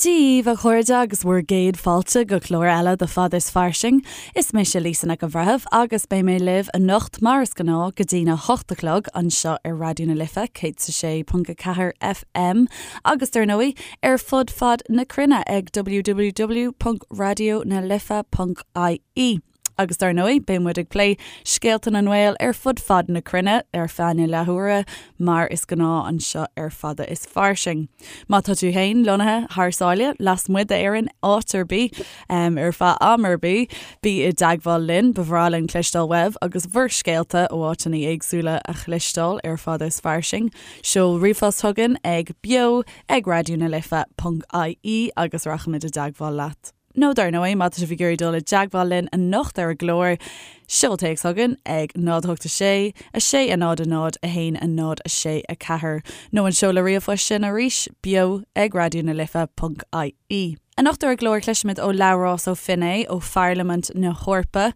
Dia dhaoibh, a chairde, agus bhur gcéad fáilte go clár eile de Fada is Fairsing. Is mise Lisa Nic an Bhreithimh agus beidh mé libh anocht mar is gnáth go dtína hocht a chlog anseo ar Raidió na Life 106.4 FM agus dar ndóigh ar fud fad na cruinne ag www.raidionalife.ie. Agus dar ndóigh, beidh muid ag plé scéalta na nGael ar fud fad na cruinne ar feadh na leathuaire, mar is gnáth anseo ar Fada is Fairsing. Má tá tú féin lonnaithe thar sáile, lasmuigh d'Éirinn, áit ar bith, ar feadh am ar bith, bí i dteagmháil linn, ba bhreá linn cloisteáil uaibh agus bhur scéalta ó áiteanna éagsúla a chloisteáil ar Fada is Fairsing. Seol ríomhphost chugainn ag beo ag raidionalife ponc ie agus rachaimid i dteagmháil leat. Nó dar ndóigh, má tá sibh ag iarraidh dul i dteagmháil linn anocht ar an gclár, seol téacs chugainn ag 0 8 6 6 0 0 1 0 6 4 nó an seoladh ríomhphoist sin arís, beo ag raidió na life ponc ie. Anocht ar an gclár cloisfimid ó Labhrás Ó Finné ó Pharlaimint na hEorpa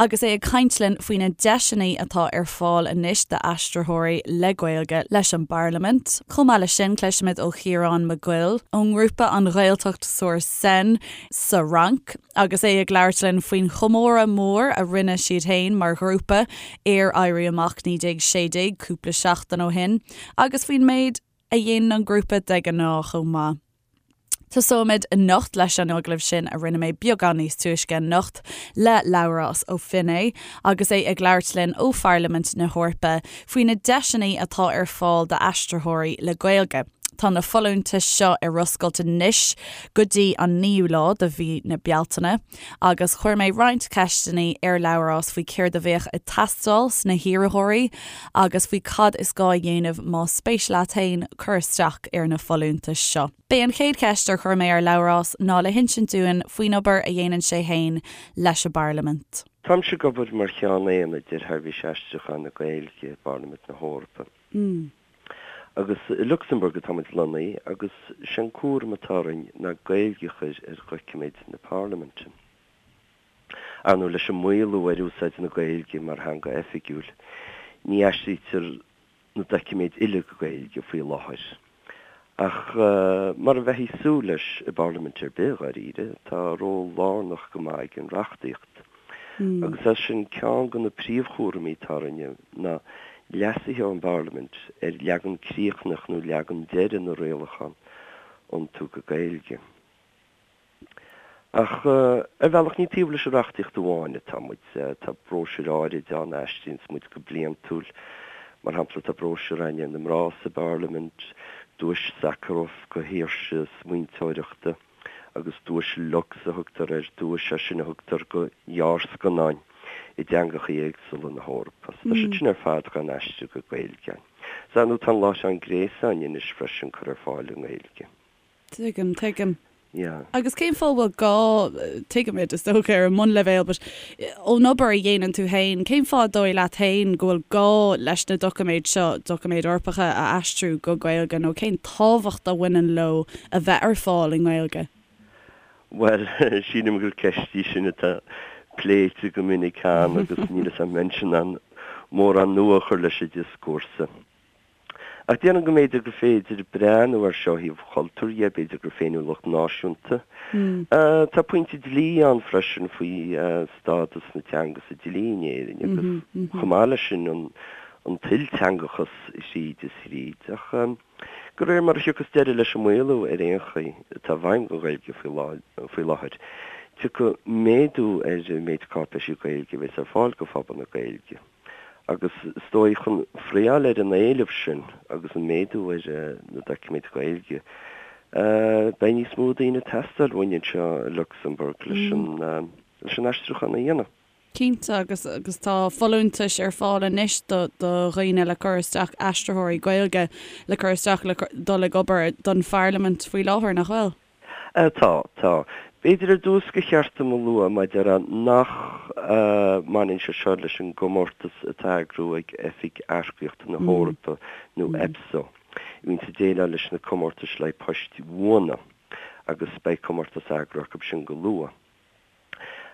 agus é ag caint linn faoi na deiseanna atá ar fáil anois d'aistritheoirí le Gaeilge leis an bParlaimint. Chomh maith leis sin cloisfimid ó Chiarán Mac Goill ón ngrúpa An Ghaeltacht sur Seine sa Fhrainc agus é ag labhairt linn faoin chomóradh mór a rinne siad féin mar ghrúpa ar Éirí Amach 1916 cúpla seachtain ó shin agus faoin méid a dhéanann an grúpa de ghnáth chomh maith. Tosóimid anocht leis an agallamh sin a rinne mé beagán níos túisce anocht le Labhrás Ó Finné agus é ag labhairt linn ó Pharlaimint na hEorpa faoi na deiseanna atá ar fáil d'aistritheoirí le Gaeilge. Tá na folúntais seo ar oscailt anois go dtí an 9ú lá de mhí na Bealtaine agus chuir mé roinnt ceisteanna ar Labhrás faoi céard a bheadh ag teastáil sna hiarrthóirí agus faoi cad is gá a dhéanamh más spéis leat féin cur isteach ar na folúntais seo. B'é an chéad cheist ar chuir mé ar Labhrás ná le hinsint dúinn faoin obair a dhéanann sé féin leis an bParlaimint. Táimse ag obair mar Cheann Aonaid ar Sheirbhís Aistriúcháin na Gaeilge i bParlaimint na hEorpa. Agus i Lucsamburg atá muid lonnaithe agus sé an cúram atá orainn ná Gaeilge a chur ar dhoiciméid na Parlaiminte. Ar ndóigh, leis an maolú ar úsáid na Gaeilge mar theanga oifigiúil, ní aistrítear na doiciméid uile go Gaeilge faoi láthair. Ach mar a bheifí ag súil leis i bParlaimint ar bith, dháiríre, tá ról lárnach go maith ag an reachtaíocht. Agus as sin, ceann de na príomhchúraimí atá orainne ná leasuithe ón bParlaimint ar leagan críochnach nó leagan deiridh na rialachán a iontú go Gaeilge. Ach ar bhealach ní taobh leis an reachtaíocht amháin atá muid. Tá bróisiúir áirid ann a aistríonns muid go bliantúil. Mar shampla, tá bróisiúr againn ar na mná sa bParlaimint, Duais Sakharov do shaoirse smaointeoireachta. agus Duais Lux a thugtar air, duais é sin a thugtar do ghearrscannáin i dteangacha éagsúla na hEorpa. So tá siad sin ar fad dhá n-aistriú go Gaeilge. So ar ndóigh tá an láithreán gréasáin anois freisin curtha ar fáil i nGaeilge. Tuigim, tuigim. Yeah. Agus cén fáth a bhfuil gá, tuigimid is dócha ar an mbunleibhéal, but ón obair a dhéanann tú féin, cén fáth dóigh leat féin go bhfuil gá leis na doiciméid seo, doiciméid Eorpacha, a aistriú go Gaeilge nó cén tábhacht a bhaineann leo a bheith ar fáil i nGaeilge? Bhuel, sílim gur ceist í sin atá pléite go minic cheana agus níl 'fhios a'm an mbeinnse in ann mórán nua a chur leis an dioscúrsa. Ach déarfainn go mb'fhéidir gur féidir breathnú air seo ó thaobh chultúir dhe, b'fhéidir gur féiniúlacht náisiúnta. Tá pointe dlí ann freisin faoi stádas na teanga sa dlí in Éirinn agus chomh maith leis sin an t-ilteangachas thríd is thríd. Ach de réir mar a thiocfas deireadh leis an maolú ar aon chaoi atá i bhfeidhm don Ghaeilge faoi láthair, tiocfaidh méadú ar an méid cáipéisí Gaeilge a bheas ar fáil do phobal na Gaeilge. Agus is dóigh, chun friotháil ar an éileamh sin agus an méadú ar na doiciméid Ghaeilge, beidh níos mó daoine ag teastáil uainn anseo i Lucsamburg leis an aistriúchán a dhéanamh. Cinnte, agus agus tá folúntais ar fáil anois do do dhaoine le cur isteach, aistritheoirí Gaeilge le cur isteach le dul ag obair don Pharlaimint faoi láthair, nach bhfuil? Tá, tá. B'fhéidir ar dtús gur cheart dom a lua mar a déarfá nach mbaineann sé seo leis an gcomórtas atá á eagrú ag Oifig Earcaíochta na hEorpa nó EPSO, a bhíonns ag déileáil leis na comórtais le haghaidh poist bhuana agus beidh comórtas á eagrú acu sin go luath.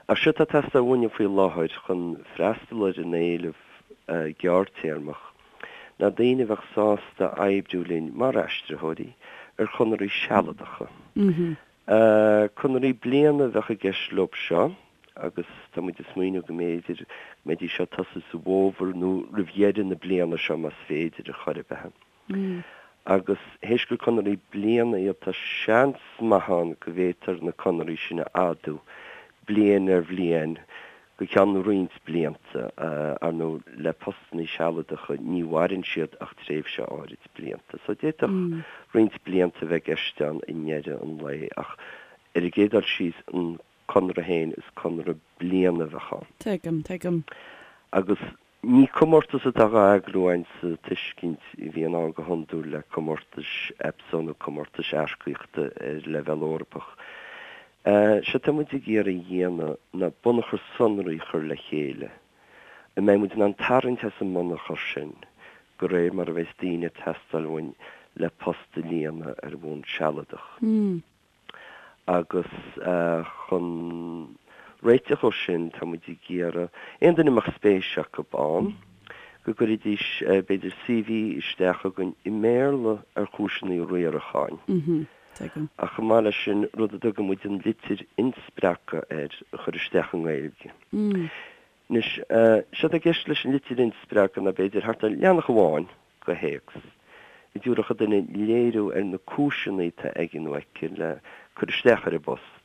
Ach séard atá ag teastáil uainne faoi láthair chun freastal ar an éileamh gearrtéarmach ná daoine a bheadh sásta oibriú linn mar aistritheoirí ar chonarthaí sealadacha. Conarthaí bliana a bheadh i gceist leo seo agus tá muid ag smaoineamh go mb'fhéidir go mbeidís ag tosú sa bhfómhar nó roimh dheireadh na bliana seo más féidir ar chor ar bith. Agus théis gur conarthaí bliana iad tá seans maith ann go bhféadfar na conarthaí sin a fhadú bliain ar bhliain go ceann roinnt blianta. Ar ndóigh le postannaí sealadacha ní mhaireann siad ach tréimhse áirid blianta. So d'fhéadfadh roinnt blianta a bheith i gceist ann i ndeireadh an lae ach ar an gcéad dul síos an conradh féin is conradh bliana a bheadh ann. Tuigim, tuigim. Agus Ní comórtas atá á eagrú againn sa tuiscint a bhíonn ann go hiondúil le comórtais EPSO nó comórtais earcaíochta ar leibhéal Eorpach. Sé atá muid ag iarraidh a dhéanamh ná bunachar sonraí a chur le chéile, a mbeidh muid in ann tarraingt as an mbunachar sin de réir mar a bheas daoine ag teastáil uainn le post a líonadh ar bhonn sealadach. Agus chun réiteach dhó sin, tá muid ag iarraidh aon duine a mbeadh spéis acu ann, go gcuirfidís, b'fhéidir, CV isteach chugainn i mBéarla ar chúiseanna riaracháin. Ach chomh maith leis sin, rud a dtugann muid an litir inspreagtha air, a chur isteach i nGaeilge. Anois, séard atá i gceist leis an litir inspreagtha ná b'fhéidir thart ar leathanach amháin de théacs, a dtabharfadh an duine léiriú ar na cúiseanna atá aige nó aici le cur isteach ar an bpost,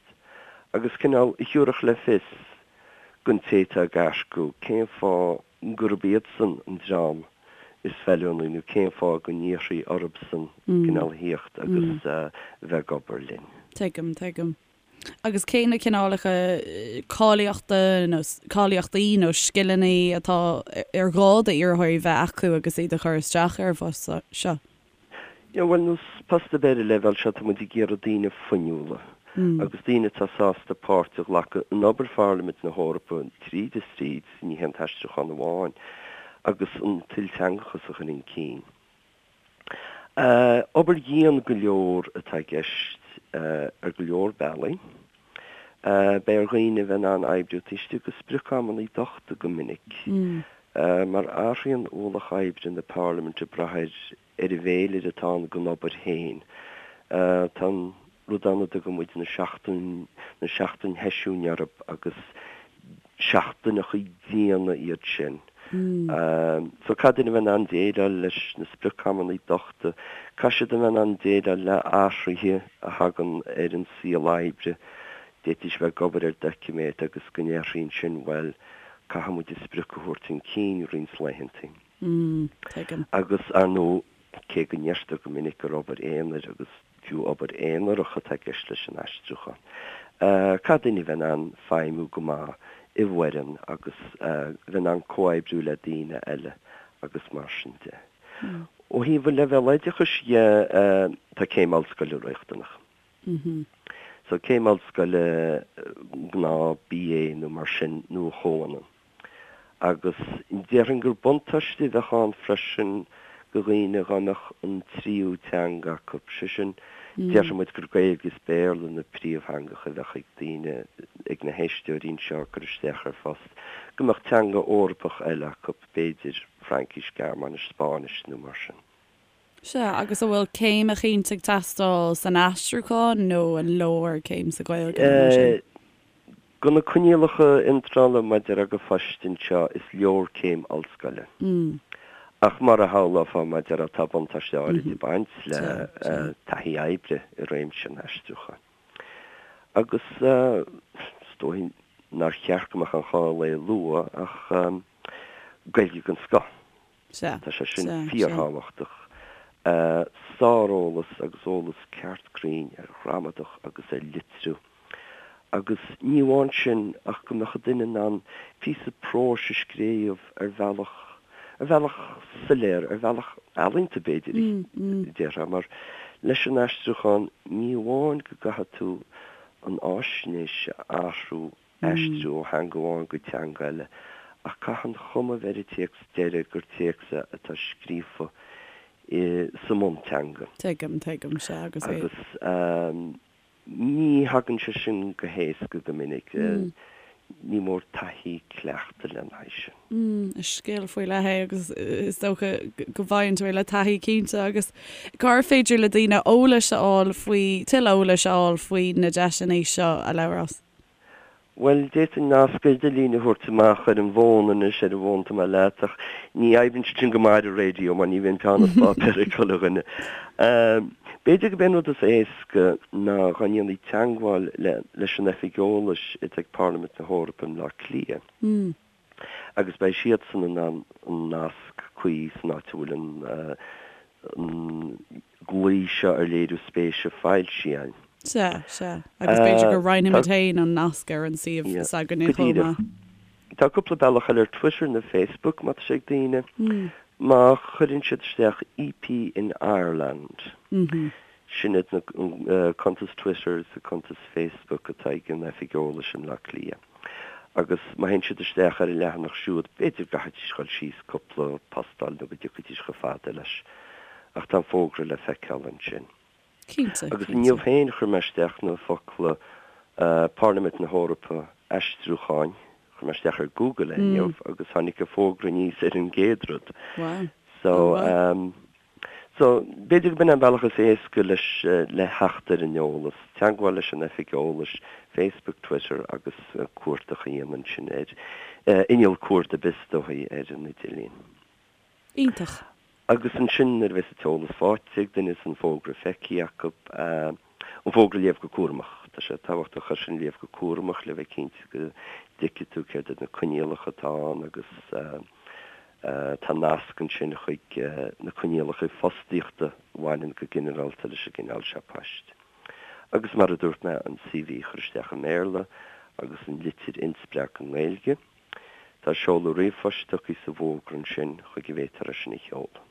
agus cineál a thiúrfadh le fios don té atá ag earcú cén fáth gurb iadsan an dream is feiliúnaí nó cén fáth go n-iarrfaí orthusan cineál a thíocht agus a bheith ag obair linn. Tuigim, tuigim. Agus cé na cineálacha cáilíochta nó cáilíochtaí nó scileanna atá ar gá d'iarrthóirí bheith acu agus iad ag cur isteach ar an bphost seo? Yeah, bhuel, nós post ar bith ar an leibhéal seo, tá muid ag iarraidh daoine fuinniúla agus daoine atá sásta páirt a ghlacadh in obair Pharlaimint na hEorpa tríd is tríd, ní hé an t-aistriúchán amháin, agus an t-ilteangachas a chur chun cinn. Obair dhian go leor atá i gceist ar go leor bealaí. Beidh ar dhaoine a bheith in ann oibriú taobh istigh de sprioc-amanna dochta go minic, mar athraíonn ualach oibre na Parlaiminte ag brath ar an bhféilire atá ann don obair féin. Tá an rud ann a dtugann muid na seachtain, na seachtain sheisiúin orthu agus seachtaineacha diana iad sin. So caithfidh duine a bheith in ann déileáil leis na sprioc-amanna dochta, caithfidh siad a bheith in ann déileáil le athruithe a thagann ar an saol oibre. D'fhéadfaidís a bheith ag obair ar doiciméad agus go ndéarfaí ansin, bhuel, caithfidh muid an sprioc a thabhairt chun cinn roinnt laethanta. Agus, ar ndóigh, cé go ndeirtear go minic gur obair aonair agus fiú obair aonarach atá i gceist leis an aistriúchán, caithfidh duine a bheith in ann feidhmiú go maith i bhfoireann agus bheith in ann comhoibriú le daoine eile agus mar sin de. Ó thaobh an leibhéal oideachais dhe, tá céim ollscoile riachtanach. So céim ollscoile, gnáth BA nó mar sin nó a chomhionann. Agus déarfainn gur buntáiste a bheadh ann freisin do dhaoine dhá mbeadh an tríú teanga acu, sé sin, déarfaidh muid gur Gaeilge is Béarla na príomhtheangacha a bheadh ag daoine, ag na héisteoirí anseo ag cur isteach ar phost, go mbeadh teanga Eorpach eile acu, b'fhéidir Fraincis, Gearmáinis, Spáinnis nó mar sin. Sea, agus an bhfuil céim eicínt ag teastáil san aistriúchán nó an leor céim sa Ghaeilge nó mar sin? Do na coinníollacha iontrála maidir le poist anseo is leor céim ollscoile. Ach mar a shamhlófá maidir le tá buntáiste áirid ag baint le taithí oibre i réimse an aistriúcháin. Agus is dóigh nár cheart go mbeadh aon chall é a lua ach Gaeilge den scoth. Sea. Tá sé sin fíorthábhachtach. Sáreolas agus eolas ceart cruinn ar ghramadach agus ar litriú. Agus ní amháin sin ach go mbeadh an duine in ann píosa próis a scríobh ar bhealach, ar bhealach soiléir, ar bhealach ealaíonta b'fhéidir, déarfá, mar leis an aistriúchán ní amháin go gcaithfidh tú an fháisnéis a athrú, aistriú ó theanga amháin go teanga eile, ach caithfidh an chuma a bheith ar an téacs deiridh gur téacs é atá scríofa sa mbunteanga. Tuigim, tuigim, sea, agus é. Agus ní thagann sé sin go héasca go minic. Ní mór taithí cleachtadh lena haghaidh sin. Is scil faoi leith é agus is dócha go bhfaigheann tú é le taithí cinnte. Agus cár féidir le daoine eolais a fháil faoi, tuilleadh eolais a fháil faoi na deiseanna seo, a Labhráis? Bhuel, d'fhéadfainn nasc idirlín a thabhairt amach ar an bhfón anois, ar an bhfón atá mé leat, ach ní oibríonn sé sin go maith ar an raidió mar ní bhíonn peann is páipéar ag chuile dhuine. B'fhéidir gurb é an rud is éasca ná dá ndéanfaí teagmháil leis an Oifig Eolais atá ag Parlaimint na hEorpa i mBleá Cliath. agus beidh siadsan in ann an nasc cuí san áit a bhfuil an glao seo ar léiriú spéise foilsithe againn. Sea, sea. Agus b'fhéidir go roinnfimid féin an nasc ar an suíomh s'againne chomh maith. Tá cúpla bealach eile ar Twitter nó Facebook má tá sé ag daoine. Má chuireann siad isteach EP in Ireland, sin iad na cuntais Twitter is cuntas Facebook atá ag an Oifig Eolais i mBleá Cliath. Agus má théann siad isteach ar an leathanach siúd, b'fhéidir go gcaithfidís dul síos cúpla postáil nó go dtiocfaidís chomh fada leis. Ach tá an fógra le feiceáil ansin. Cinnte, Agus inniu féin chuir mé isteach na focla Parlaimint na hEorpa, aistriúcháin, chuir mé isteach ar Google é inniu agus tháinig an fógra aníos ar an gcéad rud. Wow. So, So, b'fhéidir go b'in an bealach is éasca leis le theacht ar an eolas, teagmháil leis an Oifig Eolais, Facebook, Twitter agus cuardach a dhéanamh ansin ar inneall cuardaigh ar bith is dóigh ar an idirlíon. Iontach. Agus ansin nuair a bheas an t-eolas faighte ag duine is an fógra feicthe acu, an fógra a léamh go cúramach. Tá sé tábhachtach é sin a léamh go cúramach le bheith cinnte go dtuigfidh tú céard iad na coinníollacha atá ann agus Tá nasc ansin chuig na coinníollacha fostaíochta a bhaineann go ginearálta leis an gcineál seo poist. Agus mar a dúirt mé, an CV a chur isteach i mBéarla agus an litir inspreagtha i nGaeilge. Tá seoladh ríomhphoist tugtha sa bhfógra ansin chuig a bhféadfar é sin a sheoladh.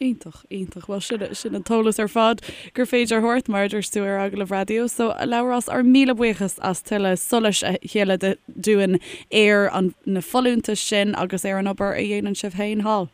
Iontach, iontach. Bhuel, sin, sin an t-eolas ar fad gur féidir a thabhairt, mar a dúirt tú ar agallamh raidió. So, a Labhráis, ár míle buíochas as tuilleadh solais a shileadh dúinn ar an, na folúntais sin agus ar an obair a dhéanann sibh féin thall.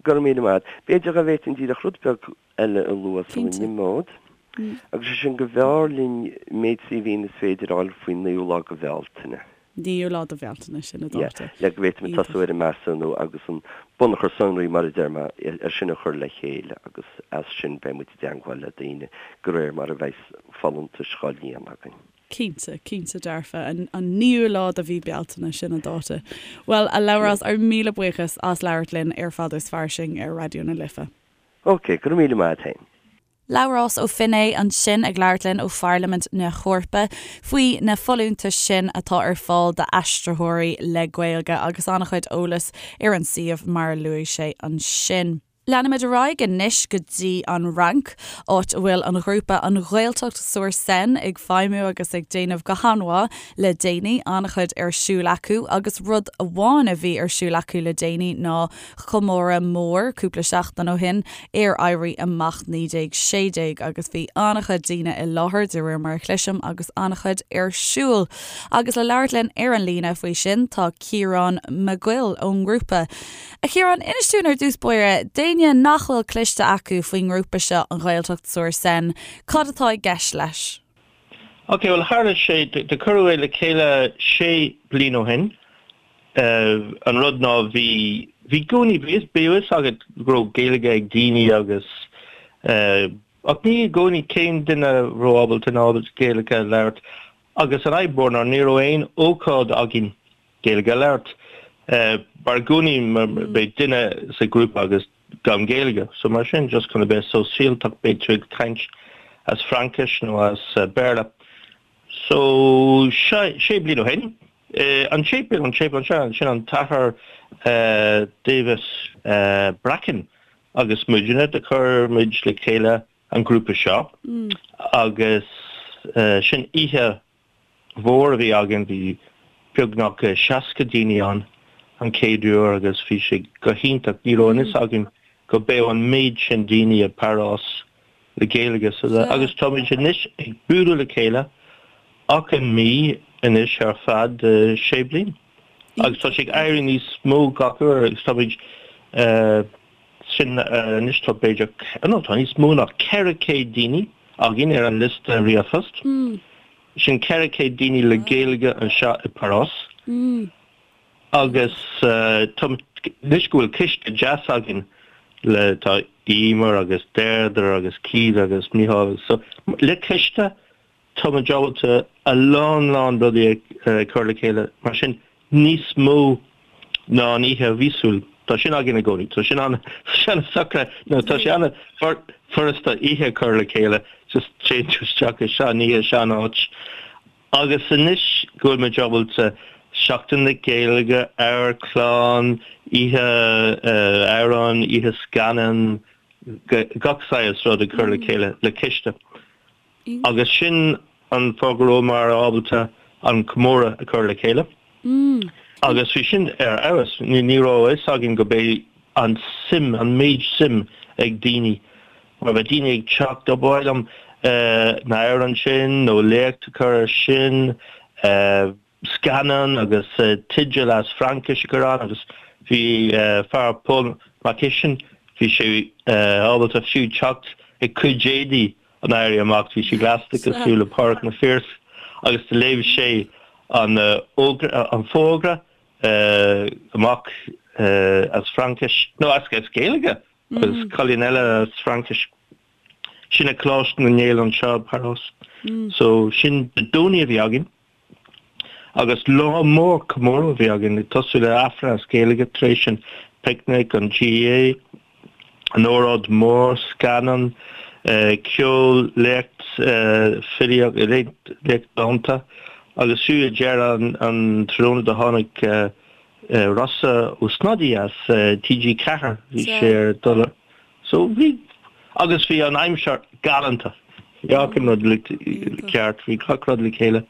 Go raibh míle maith agat. B'fhéidir go bhféadfainn díreach rud beag eile a lua sula n-imeod, agus sé sin go mb'fhearr linn méid CVnna is féidir a fháil faoin naoú lá de Bhealtaine. Naoú lá de Bhealtaine, sin an dáta. Le go bhféadfaimid tosú ar an measúnú agus an bunachar sonraí, mar a deir mé, é sin a chur le chéile agus as sin beidh muid i dteangmháil le daoine de réir mar a bheidh folúntais dhá líonadh againn. Cinnte, cinnte dearfa. An naoú lá de mhí Bealtaine, sin an dáta. Bhuel, a Labhráis, ár míle buíochas as labhairt linn ar Fada is Fairsing ar Raidió na Life. Ok, go raibh míle maith a't féin. Labhrás Ó Finnéidh ansin ag labhairt linn ó Pharlaimint na hEorpa faoi na folúntais sin atá ar fáil d'aistritheoirí le Gaeilge agus an-chuid eolais ar an suíomh mar a luaigh sé ansin. Leanfaimid ar aghaidh anois go dtí an Fhrainc, áit a bhfuil an ghrúpa An Ghaeltacht sur Seine ag feidhmiú agus ag déanamh go han-mhaith le déanaí. An-chuid ar siúl acu agus rud amháin a bhí ar siúl acu le déanaí ná comóradh mór cúpla seachtain ó shin ar Éirí Amach 1916 agus bhí an-chuid daoine i láthair, de réir mar a chloisim, agus an-chuid ar siúl. Agus le labhairt linn ar an líne faoi sin tá Ciarán Mac Goill ón ngrúpa. A Chiaráin, inis dúinn ar dtús báire, d'éinne nach bhfuil cloiste acu faoin ngrúpa seo, An Ghaeltacht sur Seine, cad atá i gceist leis? Ok, bhuel tharla sé, do cuireadh é le chéile sé bliain ó shin An rud ná bhí, bhí i gcónaí, bhí a fhios agat go raibh Gaeilge ag daoine agus ach ní i gcónaí cén duine a raibh ábalta nó ábalta Gaeilge a labhairt agus an fhadhb mhór ná ní raibh aon ócáid againn Gaeilge a labhairt mar i gcónaí beidh duine sa ghrúpa agus gan Gaeilge so mar sin just chun a bheith sóisialtach beidh tú ag caint as Fraincis nó as Béarla. So sé bliain ó shin, an séipéal, an séipéal anseo, sin an tAthair Davis Bracken agus muidne, do chuir muid le chéile an grúpa seo agus sin oíche mhór a bhí againn, bhí beagnach 60 daoine ann an chéad uair agus bhí sé go hiontach, ní raibh an fhios againn go mbeadh an méid sin daoine i bParás le Gaeilge agus táimid anois ag bualadh le chéile achan mí anois ar feadh sé bliain agus tá sé ag éirí níos mó gach uair agus táimid sin anois tá b'fhéidir no tá níos mó ná 400 daoine againn ar an liosta ríomhphost. Sin 400 daoine le Gaeilge anseo i bParás. Agus tá, anois go bhfuil ciste deas againn le, tá Emer agus Deirdre agus Keith agus Micheál so le ciste tá muid ábalta a lán lán rudaí a chur le chéile mar sin níos mó ná an oíche mhíosúil. Tá sin againn i gcónaí. Tá sin an, tá sé an-socraithe nó tá sé an-fhurasta oíche a chur le chéile just téann tú isteach i sean oíche, sean áit. Agus anois go bhfuil muid ábalta Seachtain na Gaeilge, amharclann, oíche amhrán, oíche scannán, gach saghas rud a chur le chéile le ciste. Agus sin an fáth go rabhamar ábalta an comóradh a chur le chéile. Agus bhí sin ar fheabhas. Ní raibh a fhios againn go mbeidh an suim, an méid suim ag daoine. Mar bheadh daoine ag teacht, oh ba mhaith liom na hamhráin sin nó léacht a chur ar sin, scannán agus teideal as Fraincis a chur ann agus bhí fear Paul Mac Uisin, bhí sé ábalta fiú teacht ag cuid éadaí an Éirí Amach, bhí sé gleasta cosúil le Pádraig Mac Phiarsaigh agus do léigh sé an an fógra amach as Fraincis, nó as Gaeilge agus cailín eile as Fraincis. Sin ag Coláiste na nGael anseo i bParás. So sin Dé Domhnaigh a bhí againn agus lá mór comóradh a bhí againn ag tosú le Aifreann as Gaeilge tar éis an picnic, an GAA, an óráid mór, scannán, ceol, léacht filíocht, léacht dánta agus fiú ag deireadh an tráthnóna do tháinig Rossa Ó Snodaigh as TG4, bhí sé ar dul so bhí agus bhí an aimsir galánta. Bhí achan rud ceart, bhí gach rud le chéile.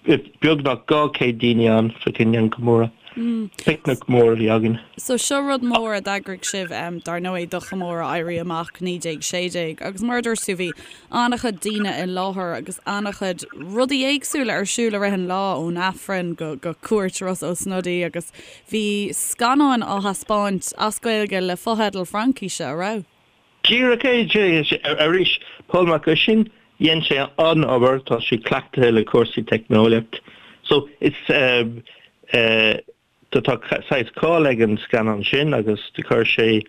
Beagnach 200 daoine ann fá choinne an comóradh. Picnic mór a bhí againn. So seo rud mór a d'eagraigh sibh dar ndóigh do chomóradh Éirí Amach 1916 agus mar a dúirt tú bhí an-chuid daoine i láthair agus an-chuid rudaí éagsúla ar siúl i rith an lá, ón Aifreann go go cuairt Rossa Ó Snodaigh agus bhí scannáin á thaispeáint as Gaeilge le fotheidil Fraincíse, a raibh? Díreach é, arís, Pól Mac Uisín, dhein sé an-obair, tá sé cleachtaithe le cúrsaí teicneolaíocht. So, is eh, tá saghas cáil ag an scannán sin agus do chuir sé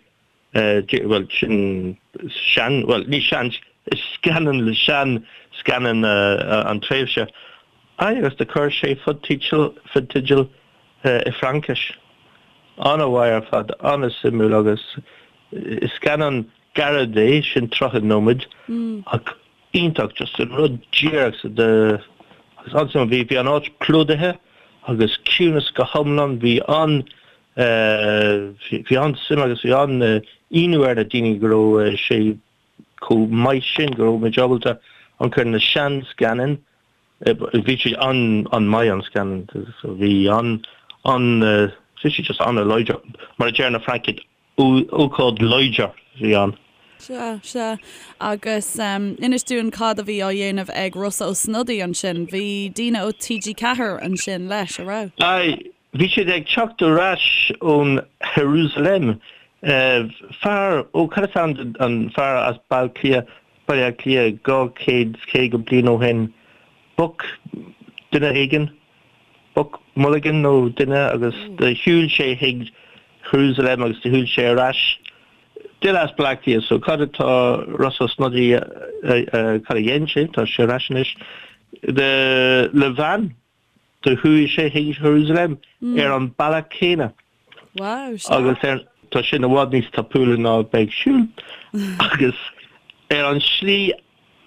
bhuel sin sean, bhuel ní sean, is scannán le sean scannán an tréimhse. Aye agus do chuir sé fotheidil, fotheidil i Fraincis. An-mhaith ar fad, an-suimiúil agus is scannán gairid é, sin 30 nóiméad ach iontach, just an rud díreach sa de agus an-suimiúil. Bhí, bhí an áit plódaithe agus ciúnas go hiomlán, bhí an bhí an-suim agus bhí an-ionadh ar na daoine go raibh sé chomh maith sin, go raibh muid ábalta amharc ar na sean-scannáin, bhí sé an-mhaith an scannán, bhí an, an, bhí sé just an-láidir, mar a deir na Francaigh, ócáid láidir a bhí ann. Sea, sea. Agus inis dúinn cad a bhí á dhéanamh ag Rossa Ó Snodaigh ansin. Bhí daoine ó TG4 ansin leis, a raibh? Aye, bhí siad ag teacht ar ais ón Jerusalem. Fear, ó cad is ainm don fear as Baile Cliath, Baile Átha Cliath 250 bliain ó shin, Buck duine éigin, Buck Mulligan nó duine agus do shiúil sé chuig Jerusalem agus do shiúil sé ar ais. Duine as Baile Átha Cliath so cad atá Rossa Ó Snodaigh cad a dhein sé, tá sé ar ais anois, le veain do chuaigh sé chuig Jerusalem ar an bealach céanna. Wow, sea. Agus ar, tá sin i bhfad níos tapúla ná bheith ag siúl. Agus ar an slí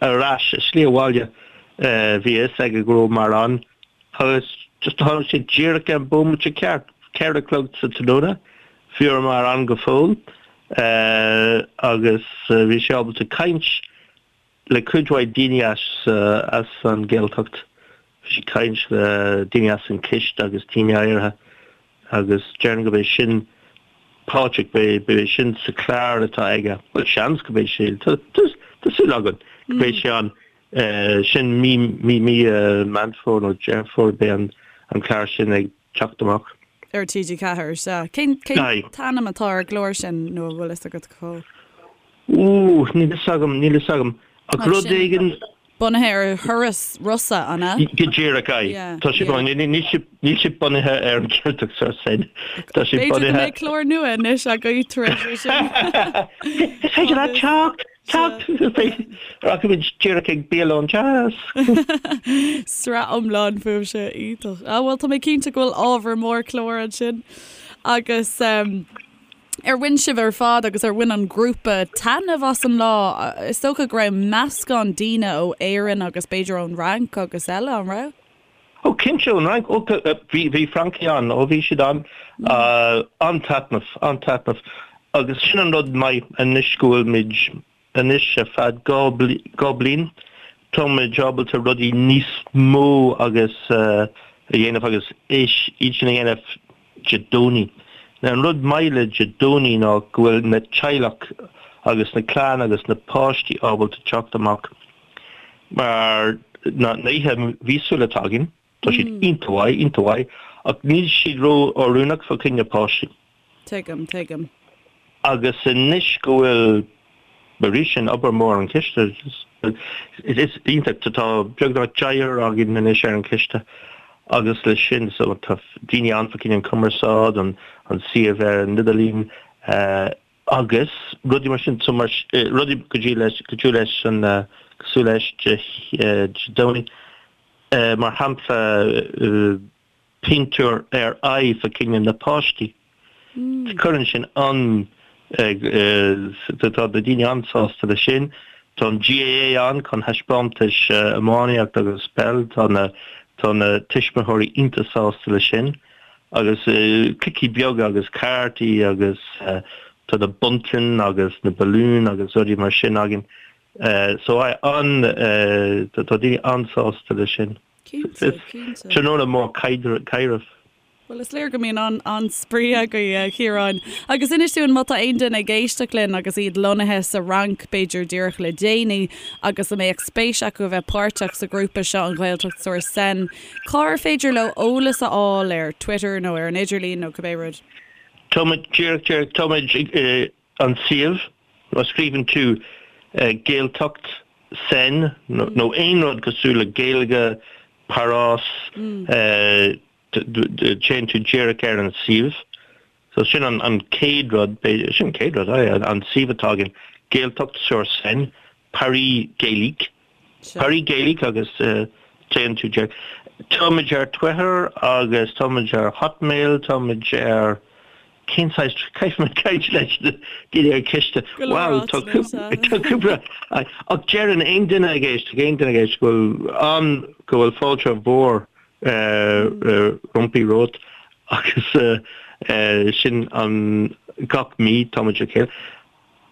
ar ais, a slí abhaile, bhí a fhios aige go rabhamar ann agus just tháinig sé díreach ar an bómaite ceart, 4 a chlog sa tráthnóna, bhíomar ann go fóill agus bhí sé ábalta caint le cuid mhaith daoine as as an Ghaeltacht. Bhí sé ag caint le daoine as an Chiste agus daoine áirithe agus déarfainn go mbeidh sin Pádraig, beidh beidh sin sa chlár atá aige. Bhuel seans go mbeidh sé, tá tá súil againn go mbeidh sé ann. Sin mí mí mí Meán Fómhair nó Deireadh Fómhair beidh an an clár sin ag teacht amach. Ar TG4, sea. Cén cén t-ainm atá ar an gclár sin nó an bhfuil fhios agat go fóill? Ooh, níl fhios agam, níl fhios agam. Ach rud éigin. Bunaithe ar thuras Rossa, an ea? Go díreach, aye. Tá sé bunaithe, níl sé bunaithe ar an Ghaeltacht sur Seine. Tá sé bunaithe. B'fhéidir go mbeidh clár nua anois agaibh tar éis sin. Is féidir leat teacht, teacht! Rachaimid díreach ag bialann deas. Sraith iomlán fúibhse, iontach. Ah bhuel, tá mé cinnte go bhfuil ábhar mór cláir ansin. Agus. Ar bhain sibh ar fad agus ar bhain an grúpa taitneamh as an lá? Is dócha go raibh meascán daoine ó Éirinn agus b'fhéidir ón Fhrainc agus eile, an raibh? Ó cinnte, ón Fhrainc. Ó bhí, bhí Francaigh ann, ó bhí siad ann. An-taitneamh, an-taitneamh. Agus sin an rud maith anois go bhfuil muid Anois ar feadh 2 bliain táimid ábalta rudaí níos mó agus a dhéanamh agus iad sin a dhéanamh Dé Domhnaigh. Now an rud maith le Dé Domhnaigh ná go bhfuil na teaghlach agus na clann agus na páistí ábalta teacht amach mar na oíche mhíosúil atá againn, tá siad iontach mhaith, iontach mhaith ach níl siad ró-oiriúnach fá choinne páistí. Tuigim, tuigim. Agus anois go bhfuil, arís, sin obair mór an chiste, is iontach, tá beagnach deichniúr againn anois ar an chiste agus leis sin, so tá daoine ann fá choinne an cumarsáid, an suíomh ar an idirlíon agus rudaí mar sin, so mar, rudaí go dtí leis, go dtí leis an, cosúil leis Dé Domhnaigh, mar shampla, pintiúr ar aghaidh fá choinne na páistí. Cuireann sin an, tá na daoine an-sásta leis sin. Tá an GAA ann chun thaispeántais iománaíocht agus peil, tá na, tá na tuismitheoirí iontach sásta leis sin. Agus cluichí beaga agus cártaí agus tá na bunting agus na balúin agus rudaí mar sin againn. So an, tá daoine an-sásta leis sin. Cinnte, cinnte. Tráthnóna mór caidrimh. Bhuel, is léir go mbíonn an-spraoi agaibh, a Chiaráin. Agus inis dúinn, má tá aon duine ag éisteacht linn agus iad lonnaithe sa Fhrainc, b'fhéidir díreach le déanaí, agus a mbeadh spéis acu a bheith páirteach sa ghrúpa seo, an Ghaeltacht sur Seine, cár féidir leo eolas a fháil, ar Twitter nó ar an idirlíon nó cibé rud? Táimid, díreach, díreach, táimid an suíomh, má scríobhann tú Gaeltacht Seine nó aon rud cosúil le Gaeilge, Páras, téann tú díreach ar an suíomh. So sin an chéad rud, sin an chéad rud, an suíomh atá againn, Gaeltacht sur Seine, Paris Gaélique. Paris Gaélique agus téann tú díreach. Táimid ar Twitter agus táimid ar Hotmail, táimid ar cén saghas, caithfidh mé caint leis na daoine ar an chiste. Wow, tá cúpla, ach deireann aon duine ag éisteacht, aon duine ag éisteacht go bhfuil an, go bhfuil fáilte mhór rompi romhat agus sin an gach mí táimid le chéile.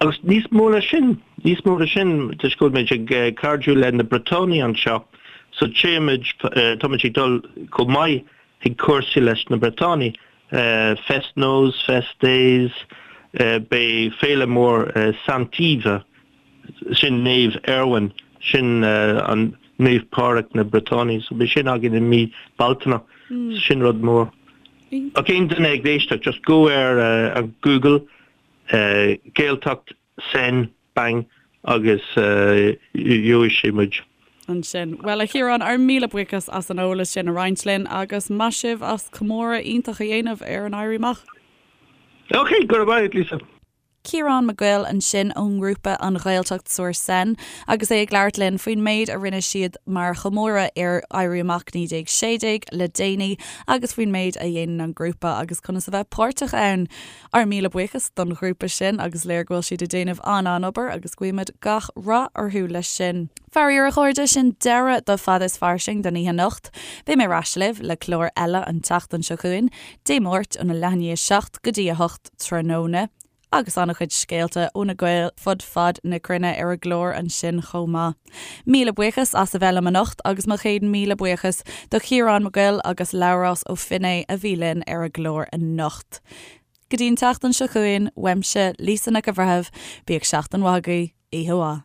Agus níos mó ná sin, níos mó ná sin, toisc go bhfuil muid ag cairdiú le na Briotánaigh anseo, so téimid, táimid ag dul chomh maith chuig cúrsaí leis na Briotánaigh, Fest-Noz, Fest-Deiz, beidh féile mór Saint-Yves, sin Naomh Erwan, sin an Naomh Pádraig na Briotánaigh, so beidh sin againn i mí Bealtaine, sin rud mór. Ach aon duine ag éisteacht, just go ar Google, Gaeltacht, Seine, bang, agus gheobhaidh sé muid. Ansin. Bhuel, a Chiaráin, ár míle buíochas as an eolas sin a roinnt linn agus maith sibh as comóradh iontach a dhéanamh ar an Éirí Amach. Ok, go raibh maith agat, Lisa. Ciarán Mac Goill ansin ón ngrúpa An Ghaeltacht sur Seine agus é ag labhairt linn faoin méid a rinne siad mar chomóradh ar Éirí Amach 1916 le déanaí agus faoin méid a dhéanann an grúpa agus conas a bheith páirteach ann. Ár míle buíochas don ghrúpa sin agus léir go bhfuil siad ag déanamh an-an-obair agus guímid gach rath orthu leis sin. Faraor a chairde, sin deireadh do Fada is Fairsing don oíche anocht. Beidh mé ar ais libh le clár eile an tseachtain seo chugainn, Dé Máirt óna leath i ndiaidh 7 go dtí 8 tráthnóna. Agus an-chuid scéalta ó na Gaeil fud fad na cruinne ar an gclár ansin chomh maith. Míle buíochas as a bheith liom anocht agus mo chéad míle buíochas do Chiarán Mac Goill agus Labhrás Ó Finné a bhí linn ar an gclár anocht. Go dtí an tseachtain seo chugainn, uaimse, Lisa Nic an Bhreithimh, bíodh seachtain mhaith agaibh, oíche mhaith.